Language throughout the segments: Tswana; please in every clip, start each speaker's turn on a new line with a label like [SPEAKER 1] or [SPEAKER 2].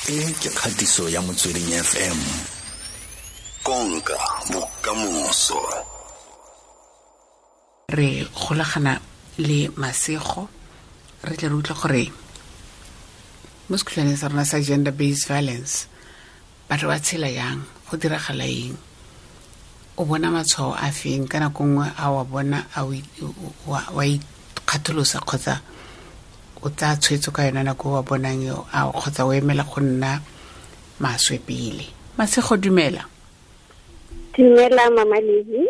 [SPEAKER 1] E ke kgatiso ya Motsweding FM. Konka bokamoso.
[SPEAKER 2] Re golagana le Masego, re tle re utlwe gore mo sekhutlwaneng sa rona sa gender based violence batho ba tshela yang, go diragala eng, o bona matshwao a feng ka nako nngwe a wa bona a wa ikgatholosa kgotsa o tsaya tshwetso ka yona nako wa bonang eo, a kgotsa o emela go nna maswe pele. Masego, dumela.
[SPEAKER 3] Dumela Mama Lizzy.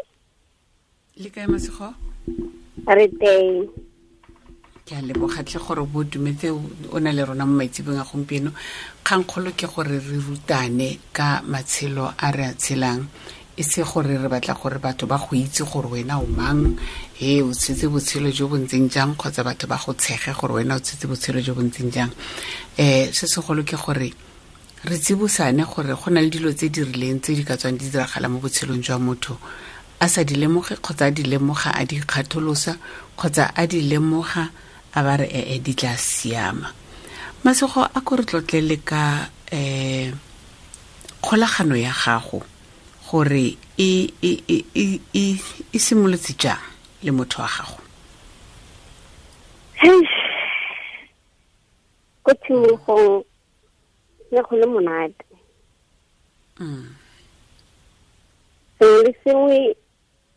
[SPEAKER 2] Le kae Masego?
[SPEAKER 3] Re teng.
[SPEAKER 2] Ke a leboga tlhe gore bo dumetse o na le rona mo maitsebong a gompieno. Kgangkgolo ke gore re rutane ka matshelo a re a tshelang, e se gore re batla gore batho ba go itse gore wena o mang, he o tshetse botshelo jo bo ntseng jang, kgotsa batho ba go tshege gore wena o tshetse botshelo jo bo ntseng jang. Se segolo ke gore re tsibosane gore go na le dilo tse di rileng tse di ka tswang di diragala mo botshelong jwa motho a sa di lemoge, kgotsa a di lemoga a di ikgatholosa, kgotsa a di lemoga a ba re ee di tla siama. Masego, a ko re tlotlele ka kgolagano ya gago gore e simolotse jang le motho wa gago?
[SPEAKER 3] Ko tshimologong ne go le monate. Sengwe le sengwe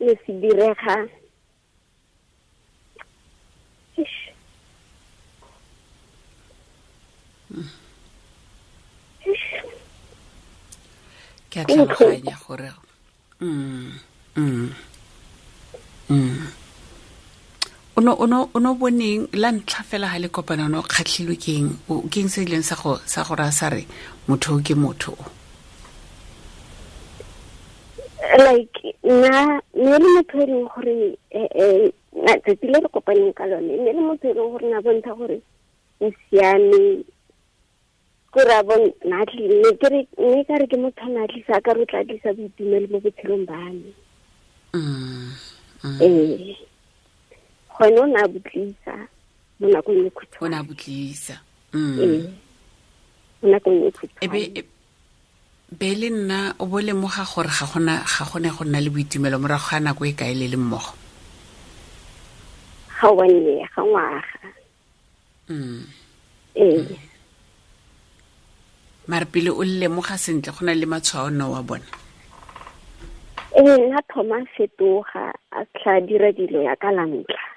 [SPEAKER 3] ne se direga.
[SPEAKER 2] Ke a tlhaloganya gore o no boneng la ntlha fela ha le kopana, o no kgatlhilwe ke eng? Ke eng se ileng sa go raya sa re motho o ke motho o?
[SPEAKER 3] Like nna ne le motho e leng gore tsatsi le re kopaneng ka lone, ne le motho e leng gore na bontsha gore o siame, kore a na ne ke re, ne ka re ke motho a na tlisa, ka re o tla tlisa boitumelo mo botshelong ba me. Ee. Gone o ne a botlisa mo nakong e khutshwane.
[SPEAKER 2] O ne a botlisa.
[SPEAKER 3] Ee. Mo nakong e khutshwane.
[SPEAKER 2] Be le nna o bo lemoga gore ga gone go nna le boitumelo morago ga nako e kae le le mmogo?
[SPEAKER 3] Ga one year, ga ngwaga. Ee.
[SPEAKER 2] Mare pele o lemoga sentle go na le matshwao no wa bona?
[SPEAKER 3] Ee, nna thoma fetoga a tla dira dilo ya ka la ntlha.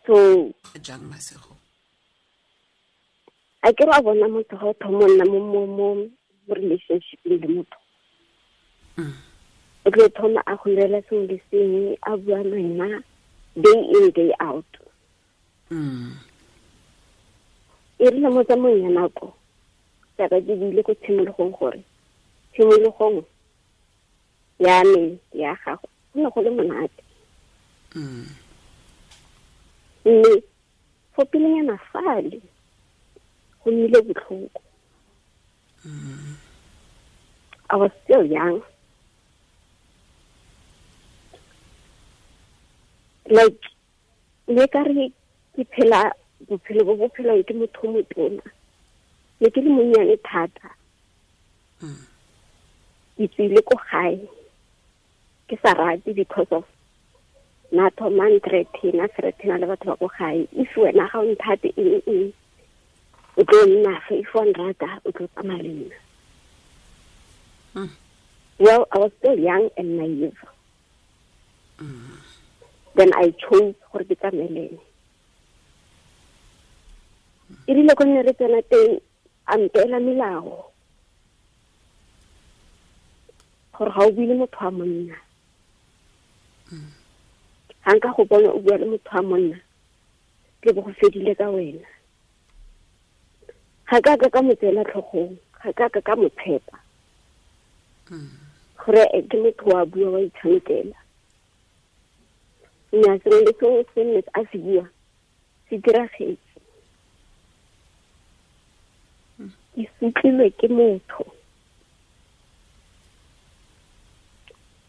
[SPEAKER 3] So
[SPEAKER 2] jang Masego?
[SPEAKER 3] A ke re a bona motho ga o thoma nna mo relationship le motho. O tlo thoma a go irela sengwe le sengwe, a bua le wena day in day out. E rile mo tsamaong ya nako, jaaka ke buile ko tshimologong gore tshimologong ya me ya gago go ne go le monate. Mme fo pelenyana fale go nnile botlhoko. I was still young. Like ne ka re ke phela bophelo bo bo phelwang ke motho o motona. Ne ke le monnyane thata. Ke tswile ko gae ke sa rate because of na thoma nthreaten, a threatena le batho ba ko gae. If wena ga o nthate eng eng, o tlo nna fa, if wa nrata o tlo tsamaya le nna. Well, I was still young and naive. Then I chose gore ke tsamaye le ene. E rile ko nne re tsena teng, a mpeela melao gore ga o bue le motho wa monna. Ga nka go bona o bua le motho wa monna, ke bo go fedile ka wena. Ga ka ka mo tseela tlhogong, ga ka ka mo tshepa. Gore ke motho wa bua wa itshamekela. Mme a sengwe le sengwe se nne a se bua, se diragetse. Ke sutlilwe ke motho.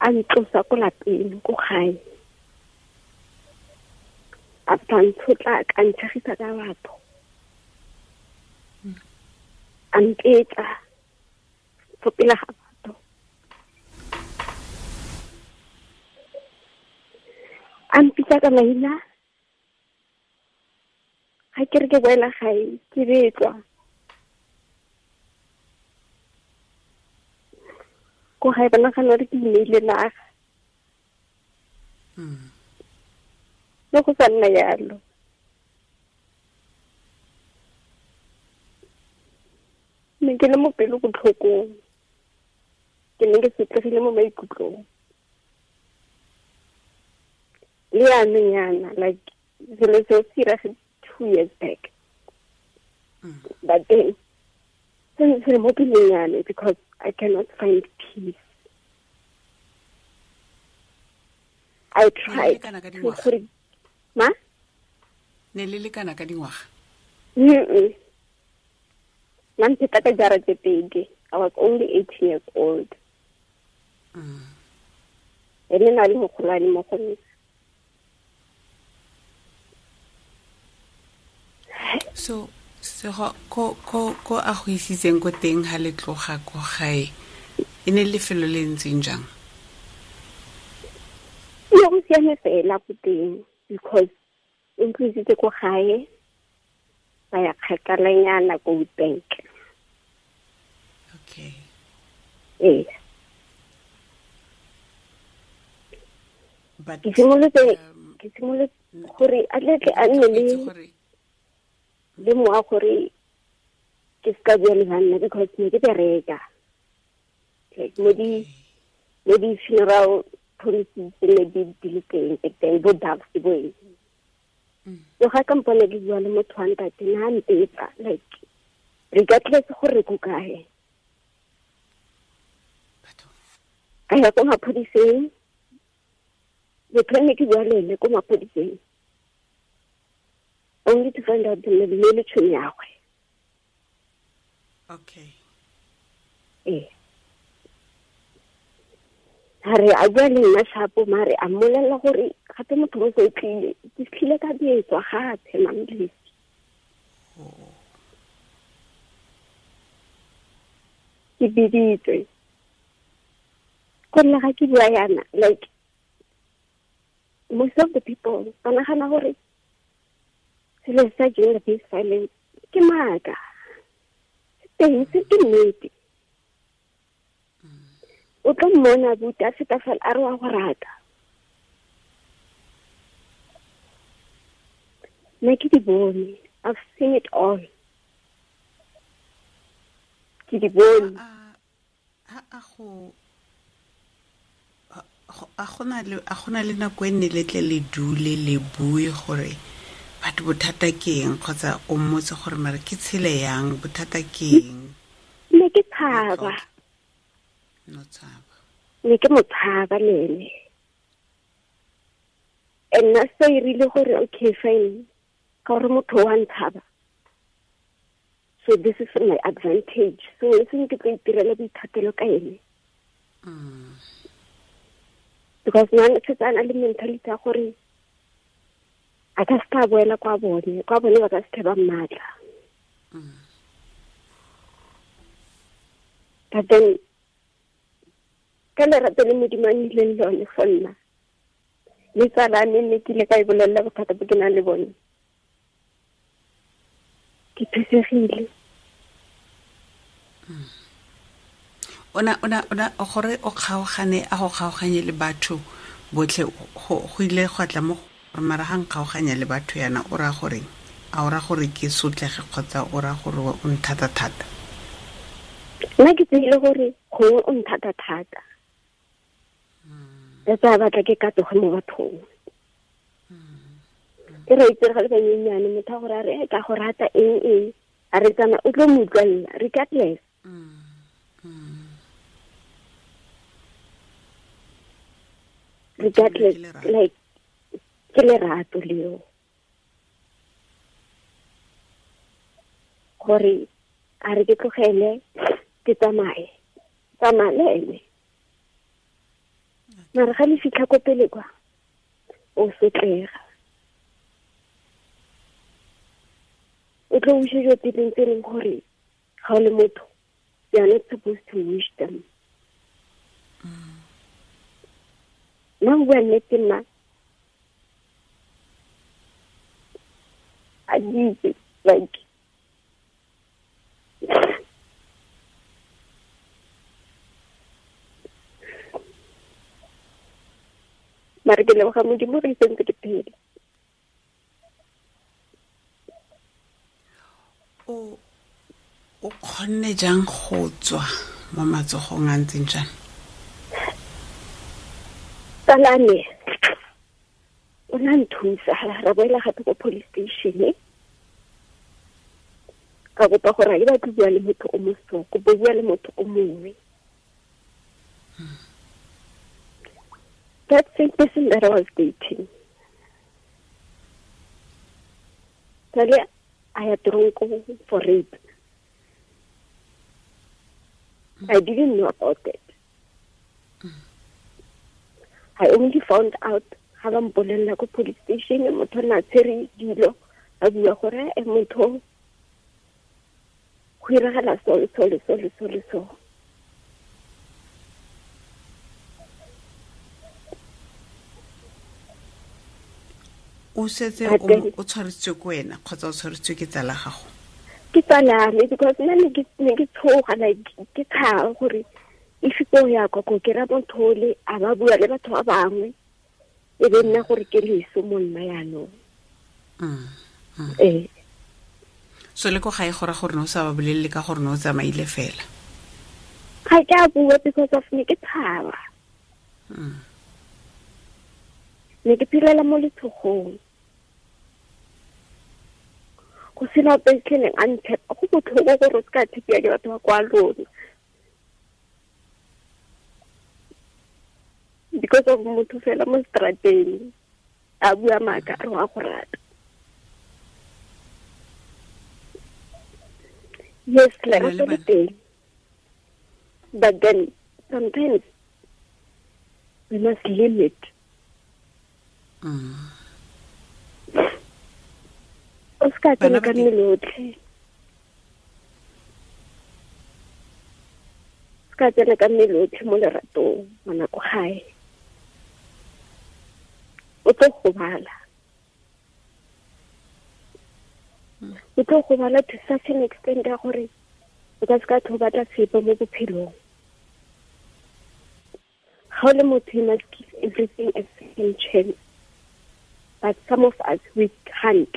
[SPEAKER 3] A ntlosa ko lapeng, ko gae. After ntshotla ka ntshegisa ka batho. A mpetsa fo pele ga batho. A mpitsa ka maina. Ga ke re ke boela gae ke betlwa. Ko gae ba nagana gore ke ineile naga. Le go sa nna yalo. Ne ke le mo pelo botlhokong. Ke ne ke sotlegile mo maikutlong. Le yanong yana, like selo seo se iragetse 2 years back. But then se se mo pelong ya me because I cannot find peace. I tried to gore ma?
[SPEAKER 2] Ne le lekana ka dingwaga?
[SPEAKER 3] Nna mpheta ka jara tse pedi. I was only 18 years old. Ene na le mogolwane mo go nna.
[SPEAKER 2] So sego ko ko ko a go isitseng ko teng ha le tloga ko gae e ne lefelo le ntseng jang?
[SPEAKER 3] Ne go siame fela ko teng because o ntlisitse ko gae ba ya kgakalanyana ko Witbank.
[SPEAKER 2] Okay.
[SPEAKER 3] Ee.
[SPEAKER 2] But
[SPEAKER 3] ke simolotse gore a tle a nne le moa gore ke ska bua le banna because ne ke bereka. Like mo di funeral policies ne di le teng teng bo doves bo eng. So ga ka mpone ke bua le motho wa ntate na mpetsa like regardless gore ko kae. Ka ya ko maphodiseng, motho ne ke bua le ene ko maphodiseng. Only to find out the le tšhomi ya gagwe.
[SPEAKER 2] Okay.
[SPEAKER 3] Ee. Ha re a bua le nna shapo mare a mmolelela gore gape motho mo se tlile ke tlile ka betswa gape mamlisi. Ke biditswe. Go nna ga ke bua yana like most of the people ba nagana gore selo sa gender based violence ke maaka. Teng se ke nnete. O tlo mmona buti a feta fela a re wa go rata. Nna ke di bone. I've seen it all. Ke di bone.
[SPEAKER 2] A gona le nako e nne le tle le dule le bue gore batho bothata ke eng kgotsa o mmotse gore mare ke tshele yang bothata ke eng?
[SPEAKER 3] Ne ke tshaba.
[SPEAKER 2] No tshaba.
[SPEAKER 3] Ne ke mo tshaba le ene. And nna se e rile gore okay fine ka gore motho wa ntshaba. So this is my advantage. So e seng ke tlo itirela boithatelo ka ene. Because nna setse a na le mentality ya gore a ka se ka boela kwa bone ba ka se ba mmatla. But then ka lerato le Modimo a nnileng lone for nna le tsala me ne ke ile ka e bolelela bothata bo ke nang le bone. Ke thusegile.
[SPEAKER 2] Ona gore o kgaogane a go kgaoganye le batho botlhe go ile go tla mo mara ga nkgaoganya le batho yana o ra gore a o ra gore ke sotlege kgotsa o ra gore o nthata thata?
[SPEAKER 3] Nna ke tsile gore gongwe o nthata thata. That's why batla ke katoge mo bathong. Ke re itse ga le banyenyane motho a gore a re ka go rata eng eng a re tsama o tlo mo utlwella regardless. Regardless like ke lerato leo gore a re ke tlogele ke tsamaye tsamaya le ene. Mara ga le fitlha ko pele kwa o sotlega. tlo wisha dilo tse dingwe tse e leng gore ga o le motho, you are not supposed to wish them. Nna go bua nnete, nna a di itse, like mare ke leboga Modimo re sentse ke phela.
[SPEAKER 2] O kgonne jang go tswa mo matsogong a ntseng jang?
[SPEAKER 3] Tsalane o na nthusa, ra boela gape ko police station, ka kopa gore ga ke batle bua le motho o mo so, kopa bua le motho o mongwe. That same person that I was dating, Tale I had drunk for rape. I didn't know about it. I only found out ga ba mpolelela ko police station, motho na tshwere dilo a bua gore e motho go iragala so le so le so le so le so.
[SPEAKER 2] O setse o tshwaretswe ko wena kgotsa o tshwaretswe ke tsala gago?
[SPEAKER 3] Ke tsala me, because nna ne ke tshoga, like ke tshaba gore if ko ya kwa ko ke ra motho le a ba bua le batho ba bangwe, e be nna gore ke leso mo nna yaanong. Ee.
[SPEAKER 2] So le ko gae go ra gore ne o sa ba bolelele ka gore ne o tsamaile fela?
[SPEAKER 3] Ga ke a bua because of ne ke tshaba. Ne ke phelela mo letshogong, go sena ope tlheleng a ntshepa. Go botlhoko gore o se ka tshepiwa ke batho ba kwa lona because of motho fela mo strateng a bua maaka a re wa go rata. Yes, lerato le teng, but then sometimes we must limit. O se ka tsena ka mmele otlhe, o se ka tsena ka mmele otlhe mo leratong, ngwana ko gae o tlo gobala. O tlo gobala to such an extent ya gore o ka se ka tlho batla sepe mo bophelong. Ga o le motho, you must give everything a second chance, but some of us, we can't.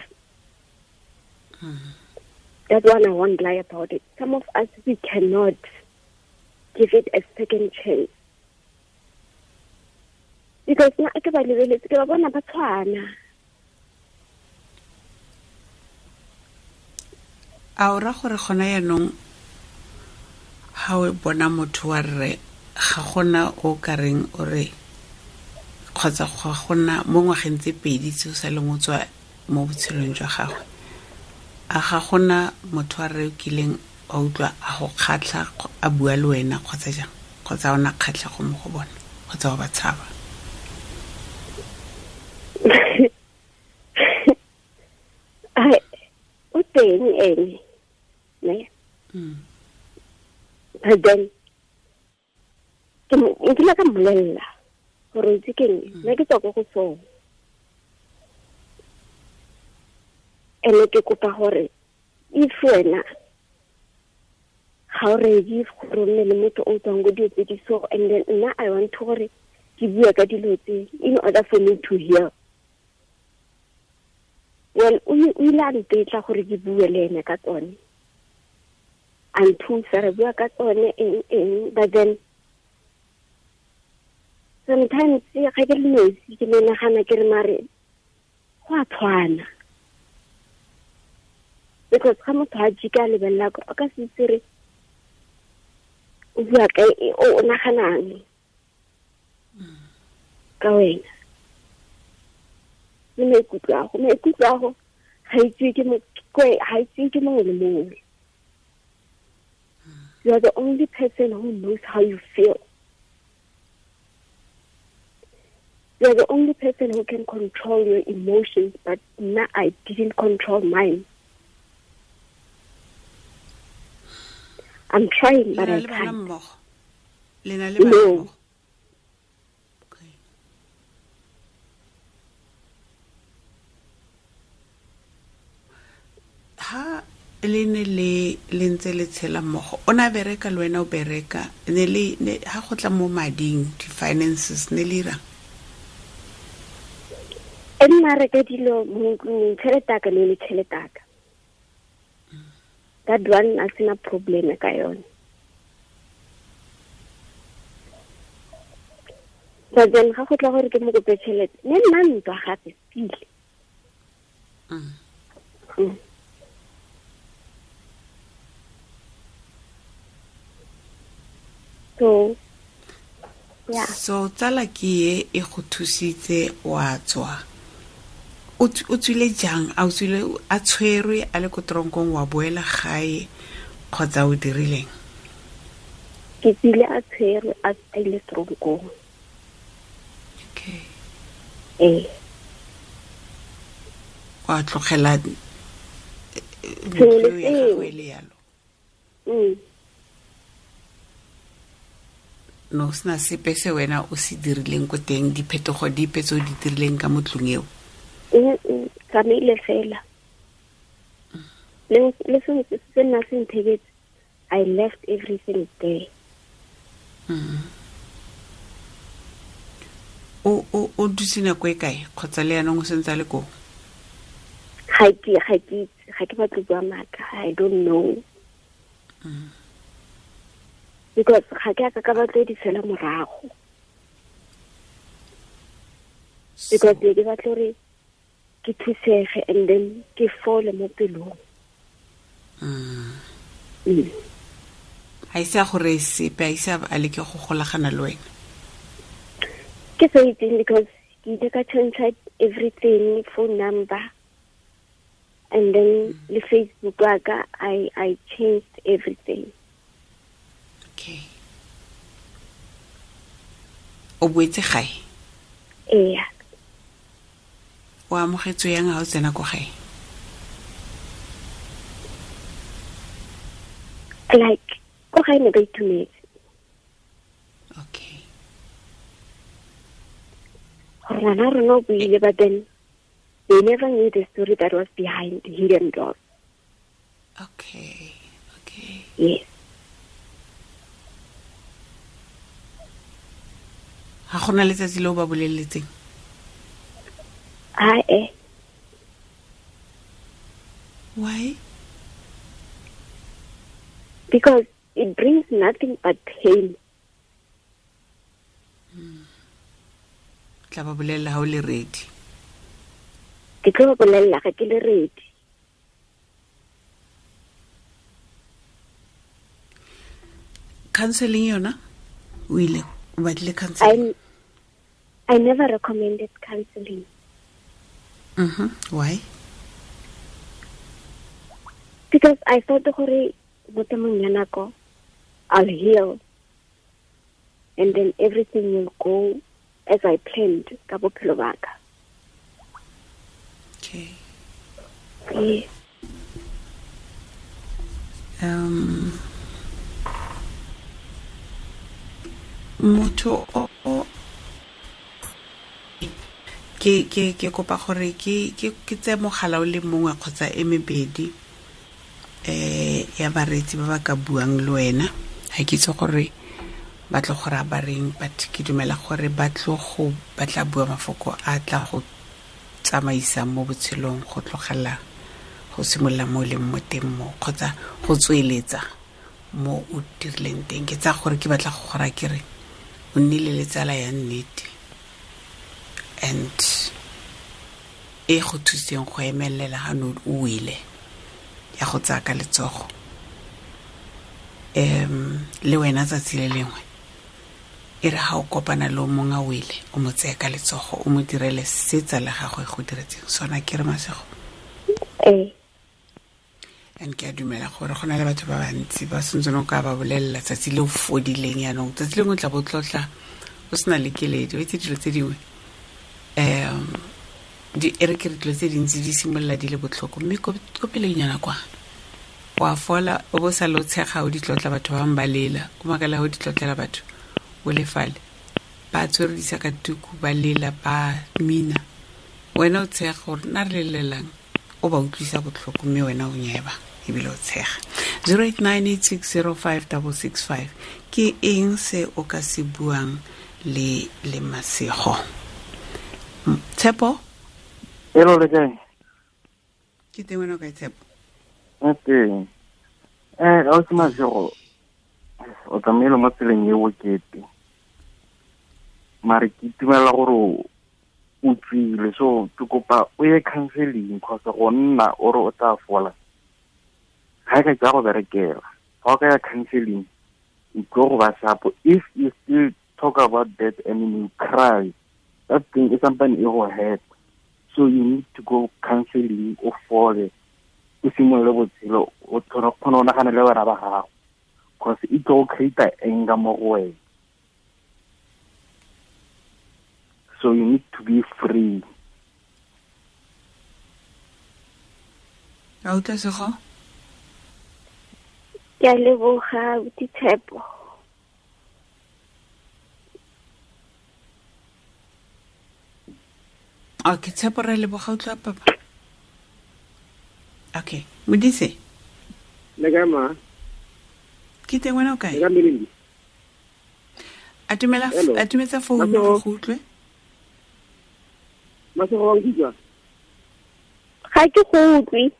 [SPEAKER 3] That one I won't lie about it. Some of us, we cannot give it a second chance. Because nna ke ba lebeletse, ke ba bona ba tshwana.
[SPEAKER 2] A o ra gore gona yaanong ga o bona motho wa rre, ga gona o ka reng o re kgotsa ga gona mo ngwageng tse pedi tse o sa leng o tswa mo botshelong jwa gagwe, a ga gona motho wa rre o kileng a utlwa a go kgatlha a bua le wena kgotsa jang, kgotsa o na kgatlhego mo go bona kgotsa o ba tshaba?
[SPEAKER 3] O teng ene, ne? But then ke nkile ka mmolelela gore itse ke eng, nna ke tswa ko go sone, ene ke kopa gore if wena ga o ready gore o nne le motho o tswang ko dilo tse di so, and then nna I want to gore ke bue ka dilo tse in order for me to hear. Well, o ile a ntetla gore ke bue le ene ka tsone, a nthusa re bua ka tsone eng eng, but then sometimes ga ke le nosi ke menagana ke re mare go a tshwana, because ga motho a jika a lebelela o ka se itse re o bua ka o naganang ka wena le maikutlo a go. Maikutlo a go ga itsewe ke mongwe le mongwe. You are the only person who knows how you feel. You are the only person who can control your emotions, but now I didn't control mine. I'm trying, but I can't. No.
[SPEAKER 2] Okay. Ha le ne le le ntse le tshela mmogo, o ne a bereka le wena o bereka, ne le ha go tla mo mading, di-finances ne le irang?
[SPEAKER 3] E nna reka dilo mo ntlong, tšhelete ya ka ne le tšhelete ya ka. That one a sena problem ka yone. But then ga go tla gore ke mo kope tšhelete, ne nna ntwa gape pele. So, yeah.
[SPEAKER 2] So tsala ke e e go thusitse wa tswa. O tswile jang? A o tswile a tshwerwe a le ko tronkong wa boela gae kgotsa o dirileng?
[SPEAKER 3] Ke tswile a tshwerwe a ile tronkong.
[SPEAKER 2] Okay.
[SPEAKER 3] Eh.
[SPEAKER 2] Wa tlogela ntlo ya gagwe le yalo. No sena sepe se wena o se dirileng ko teng, diphetogo dipe tse o di dirileng ka mo tlung eo?
[SPEAKER 3] Tsamaile fela. Le sengwe se nna se ntheketse, I left everything there.
[SPEAKER 2] O dutse nako e kae kgotsa le yanong o sentse a le koo?
[SPEAKER 3] Ga ke batle bua maaka, I don't know. Because ga ke a ka batlo di tshela morago. Because ke batla gore ke thusege and then ke fole mo pelong.
[SPEAKER 2] Ha ise a gore sepe, ha ise a leke go golagana le wena.
[SPEAKER 3] Ke sa itseng because ke ile ka change everything, phone number, and then le Facebook wa ka, I changed everything.
[SPEAKER 2] Okay. O boetse gae?
[SPEAKER 3] Ee.
[SPEAKER 2] O amogetswe yang ha o tsena ko gae?
[SPEAKER 3] Like, ko gae ne ba itumetse.
[SPEAKER 2] Okay.
[SPEAKER 3] Gore ngwana rona o buile, but then they never knew the story that was behind the hidden door.
[SPEAKER 2] Okay, okay.
[SPEAKER 3] Yes.
[SPEAKER 2] Ha gona letsatsi le o ba boleletseng?
[SPEAKER 3] Ae.
[SPEAKER 2] Why?
[SPEAKER 3] Because it brings nothing but pain.
[SPEAKER 2] Tla ba bolella ha o le ready.
[SPEAKER 3] Ke tlo ba bolella ga ke le ready.
[SPEAKER 2] Counseling yona? O ile o batlile counseling?
[SPEAKER 3] I never recommended counseling.
[SPEAKER 2] Why?
[SPEAKER 3] Because I thought gore mo temong ya nako I'll heal and then everything will go as I planned ka bophelo ba ka.
[SPEAKER 2] Okay.
[SPEAKER 3] Yes.
[SPEAKER 2] Motho o ke kopa gore ke tse mogala o le mongwe kgotsa e mebedi ya bareetsi ba ba ka buang le wena. Ha ke itse gore ba tlo go raya ba reng, but ke dumela gore ba tlo go ba tla bua mafoko a tla go tsamaisang mo botshelong, go tlogela go simolola mo leng mo teng mo kgotsa go tsweletsa mo o dirileng teng. Ke tsaya gore ke batla go go raya ke re o nnile le tsala ya nnete and e go thuseng go emelela ha no o wele ya go tsaya ka letsogo. Le wena tsatsi le lengwe e re ha o kopana le o mongwe a wele, o mo tseye ka letsogo, o mo direle se tsala gagwe go diretseng sona. Ke re Masego?
[SPEAKER 3] Ee.
[SPEAKER 2] And ke a dumela gore go na le batho ba bantsi ba sentse o ka ba bolelela tsatsi le o fodileng yanong, tsatsi lengwe o tla bo tlotla o sena le keledi. O itse dilo tse dingwe, e re ke re dilo tse dintsi di simolola di le botlhoko, mme ko pelenyana kwa Wa fola o bo sa lo tshega o ditlotla batho ba bangwe ba lela. O makala o ditlotlela batho o le fale. Ba tshwere disakatuku ba lela ba mina. Wena o tshega gore nna re lelelang o ba utlwisa botlhoko mme wena o nyeba ebile o tshega. 0898605665 ke eng se o ka se buang le le Masego? Tshepo?
[SPEAKER 4] Hello, le kae?
[SPEAKER 2] Ke teng, wena o kae, Tshepo?
[SPEAKER 4] E teng. Ausi Masego, o tsamaile mo tseleng e bokete. Mare ke itumela gore o tswile, so ke kopa o ye counseling kgotsa go nna o re o tla fola. Ga e ka ke ya go berekela. Ga o ka ya counseling, o tlo go ba sharp. If you still talk about that and you cry, that thing is something e go hurt. So you need to go counseling, o fole, o simolole botshelo, o kgone go nagana le bana ba gago. Cause e tlo go create anger mo go wena. So you need to be free.
[SPEAKER 2] A utlwa, Sego?
[SPEAKER 3] Ke a leboga, abuti Tshepo.
[SPEAKER 2] Okay, Tshepo, re leboga, utlwa papa. Okay, Modise.
[SPEAKER 5] Le kae, ma?
[SPEAKER 2] Ke teng, wena o kae?
[SPEAKER 5] Le kae, Melindi?
[SPEAKER 2] Atumela.
[SPEAKER 5] Hello.
[SPEAKER 2] Atumetsa founu
[SPEAKER 5] Masego.
[SPEAKER 2] go utlwe.
[SPEAKER 5] Masego, wa nkutlwa?
[SPEAKER 3] Ga ke go utlwe.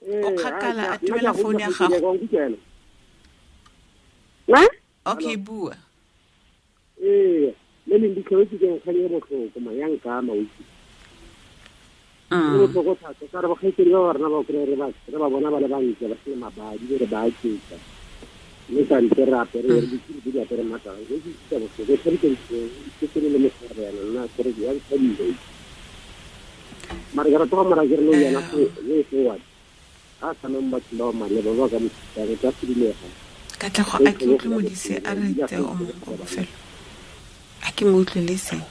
[SPEAKER 2] O kgakala, atumela founu ya gago.
[SPEAKER 5] Wa nkutlwa ena?
[SPEAKER 3] Ma?
[SPEAKER 2] Okay, bua.
[SPEAKER 5] Ee, Melindi, tlhoetse ke nkgang e botlhoko, ma, ya nkama, o itse. E botlhoko thata, ka re bakgaitsedi ba ba rona ba kry-e re ba bona ba le bantle, ba sena mabadi, be re ba aketsa. Mme kante re apere, re ditsiri tse di apere matlalo, e ke utlwisa botlhoko, e tshwanetse ke tsene le motshegare yana, nna kore ya nthabile, o itse. Mare ke rata go mora ke re nou yana way forward. A tsameng batho ba ba maleba ba ka mo thusang, e tla sedilega.
[SPEAKER 2] Katlego, a ke utlwe Modise a re tse o mongwe wa bofelo. A ke mo utlwe le seng.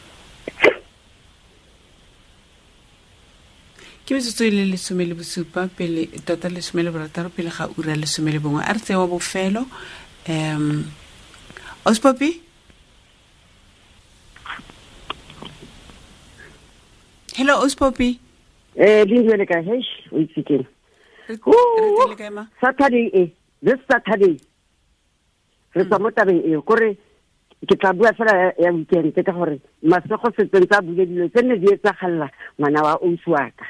[SPEAKER 2] Ke metsotso e le 17 pele, tota 16 pele ga ura 11. A re tseye wa bofelo. Ospopi? Hello, Ospopi.
[SPEAKER 6] Lindiwe le kae? Heish, o itse keng?
[SPEAKER 2] Re teng le kae, ma?
[SPEAKER 6] Saturday e, this Saturday. Re tswa mo tabeng eo, kore ke tla bua fela ya weekend ka gore Masego setseng tsa bule dilo tse ne di etsagalla ngwana wa ausi wa ka.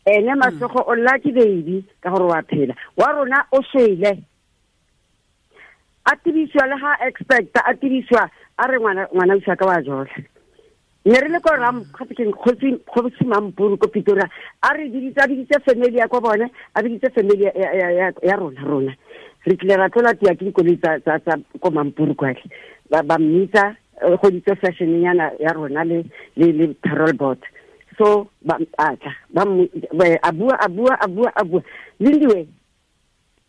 [SPEAKER 6] Ene Masego o lucky baby ka gore wa phela. Wa rona o shwele. A tibisiwa le ga expect, a tibisiwa a re ngwana ausi wa ka wa jola. Ne re le ko ram, gape ke kgosi Mampuru ko Pretoria, a re biditse, a biditse family ya ko bone, a biditse family ya rona. Re tlile ra tlola tia ke dikoloi tsa ko Mampuru kwale. Ba mmitsa, go ditse fashion nyana ya rona le parole board. So ba a tla, ba mo, ba, a bua, a bua, a bua, a bua. Lindiwe,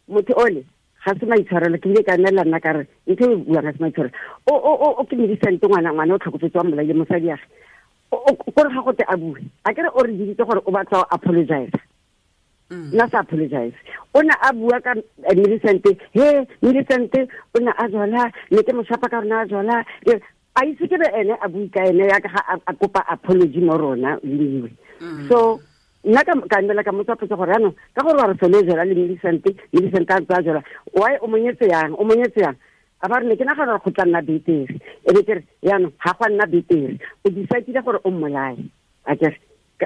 [SPEAKER 6] motho ole ga se maitshwarelo, ke ile ka nela nna ka re ntho e buang ga se maitshwarelo. O ke medicine ngwana, ngwana o tlhokofetse wa mmolaile mosadi ya gagwe. Kore ga gote a bue. A kere o re biditse gore o batla go apologize. Nna sa apologize. O ne a bua ka Millicent, he Millicent o ne a jola, ne ke mo shapa ka rona a jola. A itse ke be ene a bue ka ene ya ka ga a kopa apology mo rona, Lindiwe. So nna ka nela ka motsa potso gore jaanong, ka gore wa re sole jola le Millicent, Millicent a ntse a jola, why o monyetse yang, o monyetse yang? A ba re ne ke nagana gore go tla nna betere. E be ke re, jaanong, ga go a nna betere. O decide-ile gore o mmolaye. A ke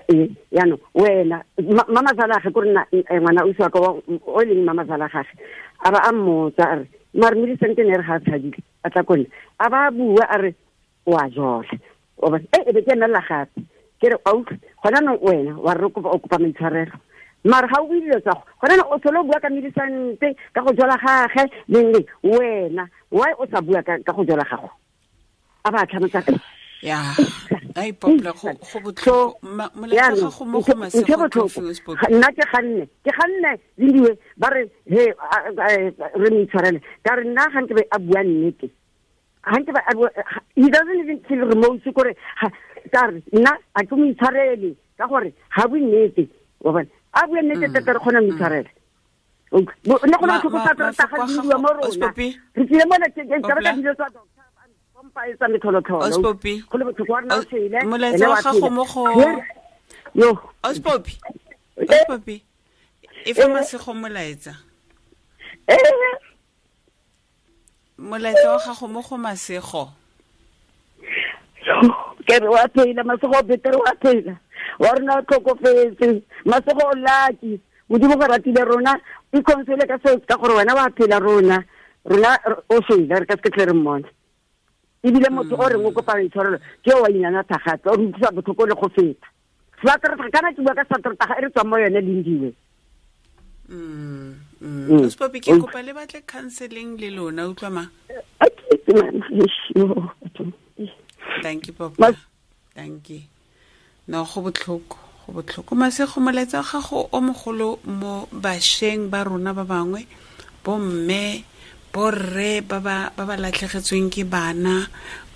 [SPEAKER 6] re, jaanong, wena, mamazala gagwe, kore nna, ngwana ausi wa ka o e leng mamazala gagwe, a ba a mmotsa, a re, mare Millicent ne re ga a tshabile, a tla ko nna. A ba a bua, a re, o a jola. O ba, e be ke emela gape. Ke re, a utlwe, gona jaanong wena, wa re o kopa maitshwarelo. Mare ga o bue dilo tsa go, gona jaanong o tlhole o bua ka Millicent, ka go jola gagwe, leng leng, wena, why o sa bua ka go jola gago? A ba tlhamotsa ka
[SPEAKER 2] Ya, ai, Popla, go botlhoko.
[SPEAKER 6] So,
[SPEAKER 2] Molaetsa
[SPEAKER 6] jaanong,
[SPEAKER 2] gago mo go Masego
[SPEAKER 6] ntho e botlhoko.
[SPEAKER 2] Coffee o Spoke.
[SPEAKER 6] Ga, nna ke ganne, ke ganne, Lindiwe, ba re, he, re mo itshwarele. Ka re nna ga nke be a bua nnete. Ga nke be a bua, ga, he doesn't even feel remorse kore, ga, ka re, nna a ke mo itshwarele, ka gore ga bue nnete. Wa bona? A bue nnete thata re kgona mo itshwarela. Ne go le botlhoko thata ga di mo rona. Re tsile mo le ka ba dilo tsa doctor pompa e tsa metlholotlholo. Go le botlhoko wa rena o tshele.
[SPEAKER 2] Molaetsa wa gago mo go
[SPEAKER 6] Yo.
[SPEAKER 2] Ospopi. Ospopi. E fa Masego molaetsa. Molaetsa wa gago mo go Masego.
[SPEAKER 6] Ke re wa phela Masego betere wa phela. Wa rona o tlhokofetse. Masego o lucky. Modimo go ratile rona o console ka seo ka gore wena wa phela rona. Rona o shwele re ka se tle re mmone. Ebile motho o reng o kopa intshwarelo ke o wa inyana thagape o re utlwisa botlhoko le go feta. Sateretaga kana ke bua ka sateretaga e re tswang mo yone Lindiwe.
[SPEAKER 2] Ospopi ke kopa le batle counseling le lona utlwa ma. Thank you papa. Thank you. No go botlhoko, go botlhoko. Masego molaetsa wa gago o mogolo mo basheng ba rona ba bangwe, bo mme, borre ba ba latlhegetsweng ke bana,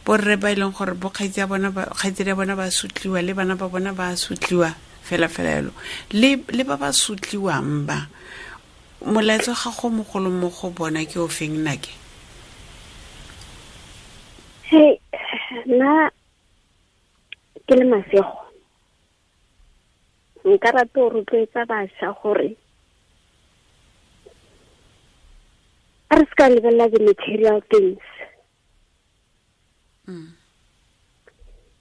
[SPEAKER 2] borre ba ileng gore bo kgaitsi ya bona ba kgaitsedi ya bona ba sutliwa le bana ba bona ba sutliwa fela fela yalo le ba ba sutliwang ba molaetsa ga go mogolo mo go bona ke o feng nake?
[SPEAKER 3] Hey, nna ke le Masego nka rata go rotloetsa bašwa gore a re se ka lebelela the material things.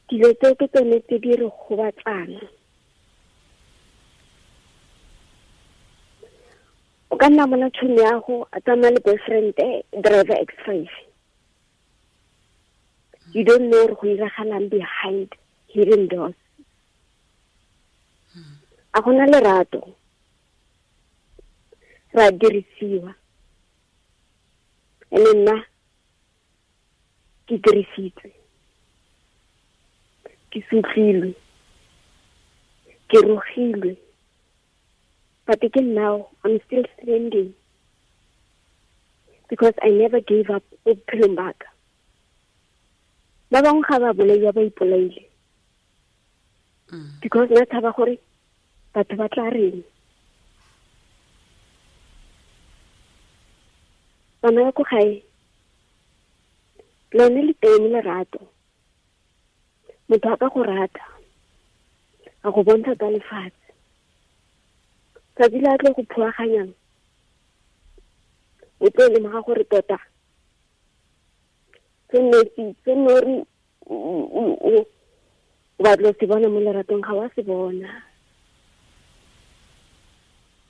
[SPEAKER 3] Dilo tseo ke tsone tse di re gobatsang. O ka nna bona tšhomi ya go a tsamaya le boyfriend driver X5. You don't know gore go iragalang behind hidden doors. A gona lerato. Ra dirisiwa. Ene nna ke dirisitswe. Ke sutlilwe. Ke rogilwe. But again now, I'm still standing. Because I never gave up bophelong ba ka. Ba bangwe ga ba bolaiwa ba ipolaile. Because nna tshaba gore batho ba tla reng. Bana ba ko gae, lone le teng lerato. Motho a ka go rata, a go bontsha ka lefatshe. Tsatsi le a tlo go phuaganyang, o tlo lemoga gore tota se nne re o batla se bona mo leratong ga wa se bona.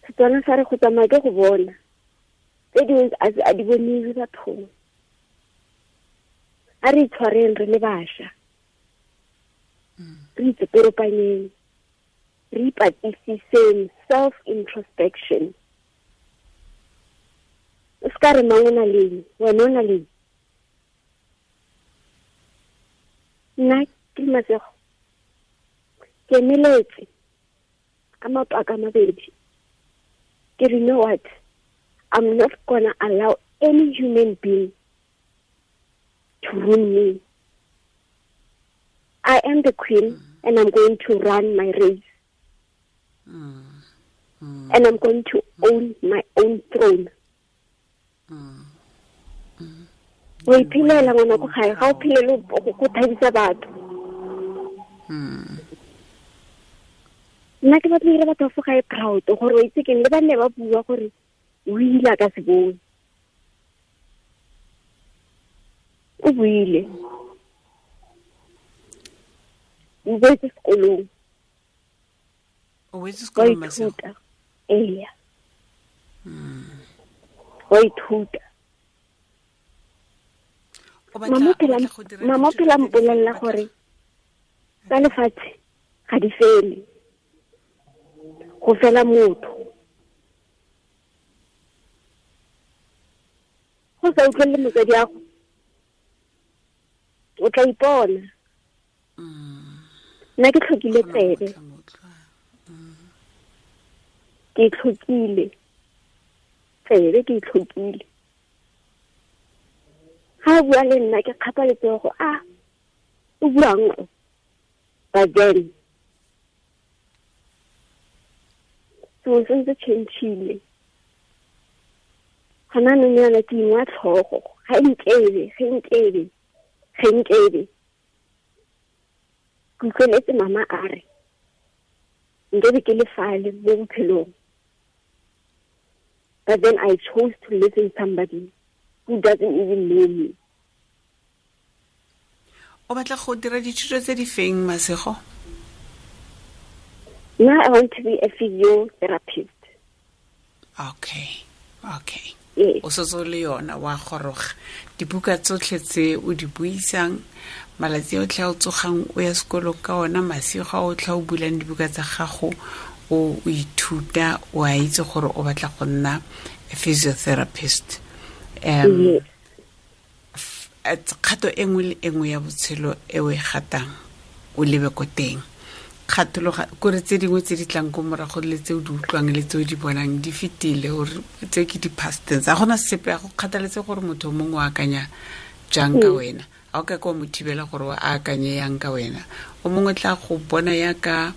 [SPEAKER 3] Setswana sa re go tsamaya ke go bona. Tse dingwe a di boniwe bathong. A re itshwareng re le bašwa. Re itseperopanyeng. Re ipatlisiseng, self-introspection. O se ka re mang o na leng, wena o na leng. Nna ke le Masego ke emeletse ka maoto a ka mabedi. Ke re, you know what? I'm not gonna allow any human being to ruin me. I am the queen and I'm going to run my race. And I'm going to own my own throne. O iphelela ngwana ko gae, ga o phelele go thabisa batho. Nna ke batla go dira batho fo gae proud gore o itse keng, le ba nne ba bua gore o ile a ka se bone. O buile. O boetse sekolong.
[SPEAKER 2] O boetse sekolong Masego?
[SPEAKER 3] Ee. Wa ithuta. Mama phela mpolelela gore tsa lefatshe ga di fele. Go fela motho. Go sa utlwele motsadi wa gago, o tla ipona. Nna ke tlhokile tsebe. Ke tlhokile tsebe, ke tlhokile. Ha bua le nna ke kgapa letsogo, a o buang o. But then sengwe se ntse change-ile. Gona anong yana ke ingwa tlhogo, ga nkebe, ge nkebe, ge nkebe. Ke utlweletse mama a re, nkebe ke le fale mo bophelong. But then I chose to live in somebody who doesn't even know me.
[SPEAKER 2] O batla go dira dithuto tse di feng, Masego?
[SPEAKER 3] Now I want to be a physiotherapist.
[SPEAKER 2] Okay, okay.
[SPEAKER 3] Yes.
[SPEAKER 2] O setse o le yona wa goroga. Dibuka tsotlhe tse o di buisang, malatsi otlhe a o tsogang o ya sekolong ka ona, masigo a otlhe a o bulang dibuka tsa gago, o ithuta, o a itse gore o batla go nna a physiotherapist.
[SPEAKER 3] Yes.
[SPEAKER 2] Kgato e nngwe le e nngwe ya botshelo e o e gatang o lebe ko teng. Kgathologa kore tse dingwe tse di tlang ko morago le tse o di utlwang le tse o di bonang di fetile, ore tse ke di-past tense. Ga gona sepe, a go kgathaletse gore motho o mongwe o akanya jang ka wena. A o ka ke wa mo thibela gore o akanye yang ka wena. O mongwe tla go bona yaka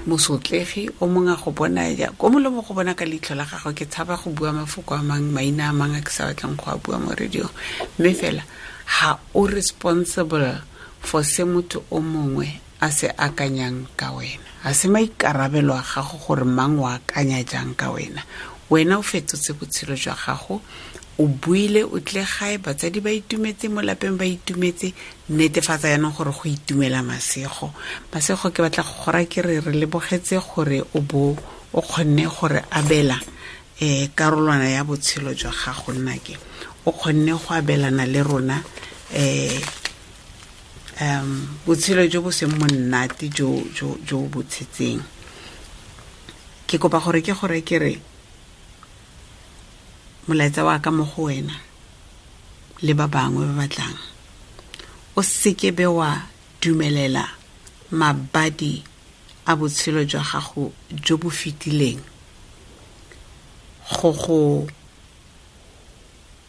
[SPEAKER 2] mosotlegi, o mongwe a go bona ya, o mongwe le mongwe go bona ka leitlho la gagwe. Ke tshaba go bua mafoko a mang, maina a mang a ke sa batlang go a bua mo radio. Mme fela ha o responsible for se motho o mongwe a se akanyang ka wena. Ha se maikarabelo a gago gore mang o akanya jang ka wena. Wena o fetotse botshelo jwa gago, o buile, o tle gae, batsadi ba itumetse, mo lapeng ba itumetse. Netefatsa jaanong gore go itumela Masego. Masego, ke batla go gora ke re re lebogetse gore o bo o kgonne gore abela karolwana ya botshelo jwa gago nnake. O kgonne go abelana le rona botshelo jo bo seng monate jo bo tshetseng. Ke kopa gore ke gore ke re molaetsa wa ka mo go wena le ba bangwe ba batlang, o seke be wa dumelela mabadi a botshelo jwa gago jo bo fetileng go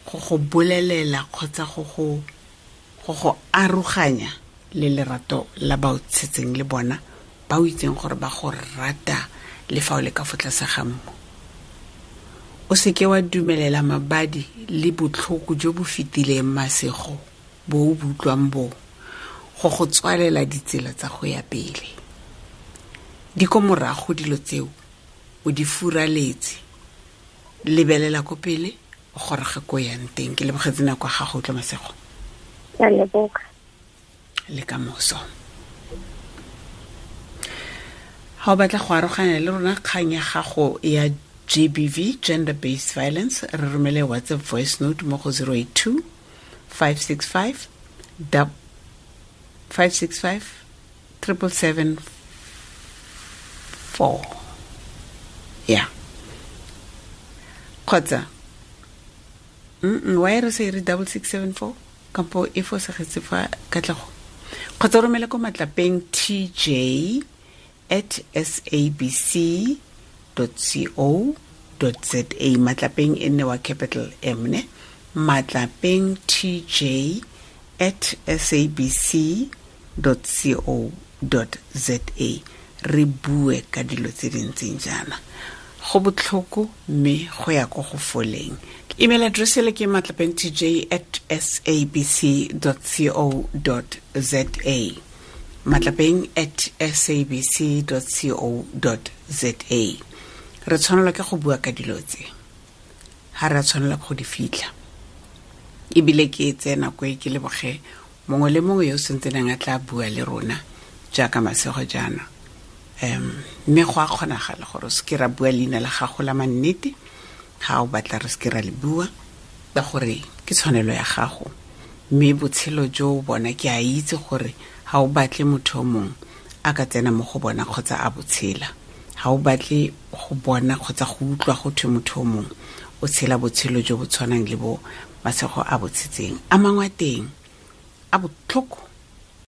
[SPEAKER 2] go bolelela kgotsa go go aroganya le lerato la ba o tshetseng le bona, ba o itseng gore ba go rata le fa o le ka fo tlase ga mmu. O seke wa dumelela mabadi le botlhoko jo bo fetileng, Masego, bo o bo utlwang bo go tswalela ditsela tsa go ya pele. Di ko morago dilo tseo, o di furaletse. Lebelela ko pele, o goroge ko yang teng. Ke lebogetse nako ya gago, utlwa Masego.
[SPEAKER 3] Ke a leboga.
[SPEAKER 2] Le ka moso. Ha o batla go aroganya le rona kgang ya gago ya GBV, gender based violence, re romele WhatsApp voice note mo go 082 565 565 777 4. Yeah. Kgotsa why re se re double six seven four kampo e fosagetse fa Katlego. Kgotsa romele ko matlapeng TJ at S A B C dot C O dot Z A. Matlapeng e nne wa capital M ne. Matlapeng TJ at S A B C dot C O dot Z A. Re bue ka dilo tse di ntseng jaana. Go botlhoko mme go ya ko go foleng. Email address ele ke matlapeng T J at S A B C dot C O dot Z A. Matlapeng at S A B C dot C O dot Z A. Re tshwanelwa ke go bua ka dilo tse. Ha re a tshwanela go di fitlha. Ebile ke tseye nako e ke leboge mongwe le mongwe yo o sentseneng a tla bua le rona jaaka Masego jaana. Mme go a kgonagala gore o seke ra bua leina la gago la mannete, ha o batla re seke ra le bua, ka gore ke tshwanelo ya gago. Mme botshelo jo o bona, ke a itse gore ha o batle motho o mongwe a ka tsena mo go bona kgotsa a botshela. Ha o batle go bona kgotsa go utlwa go thwe motho o mongwe o tshela botshelo jo bo tshwanang le bo Masego a bo tshetseng. A mangwe a teng a botlhoko,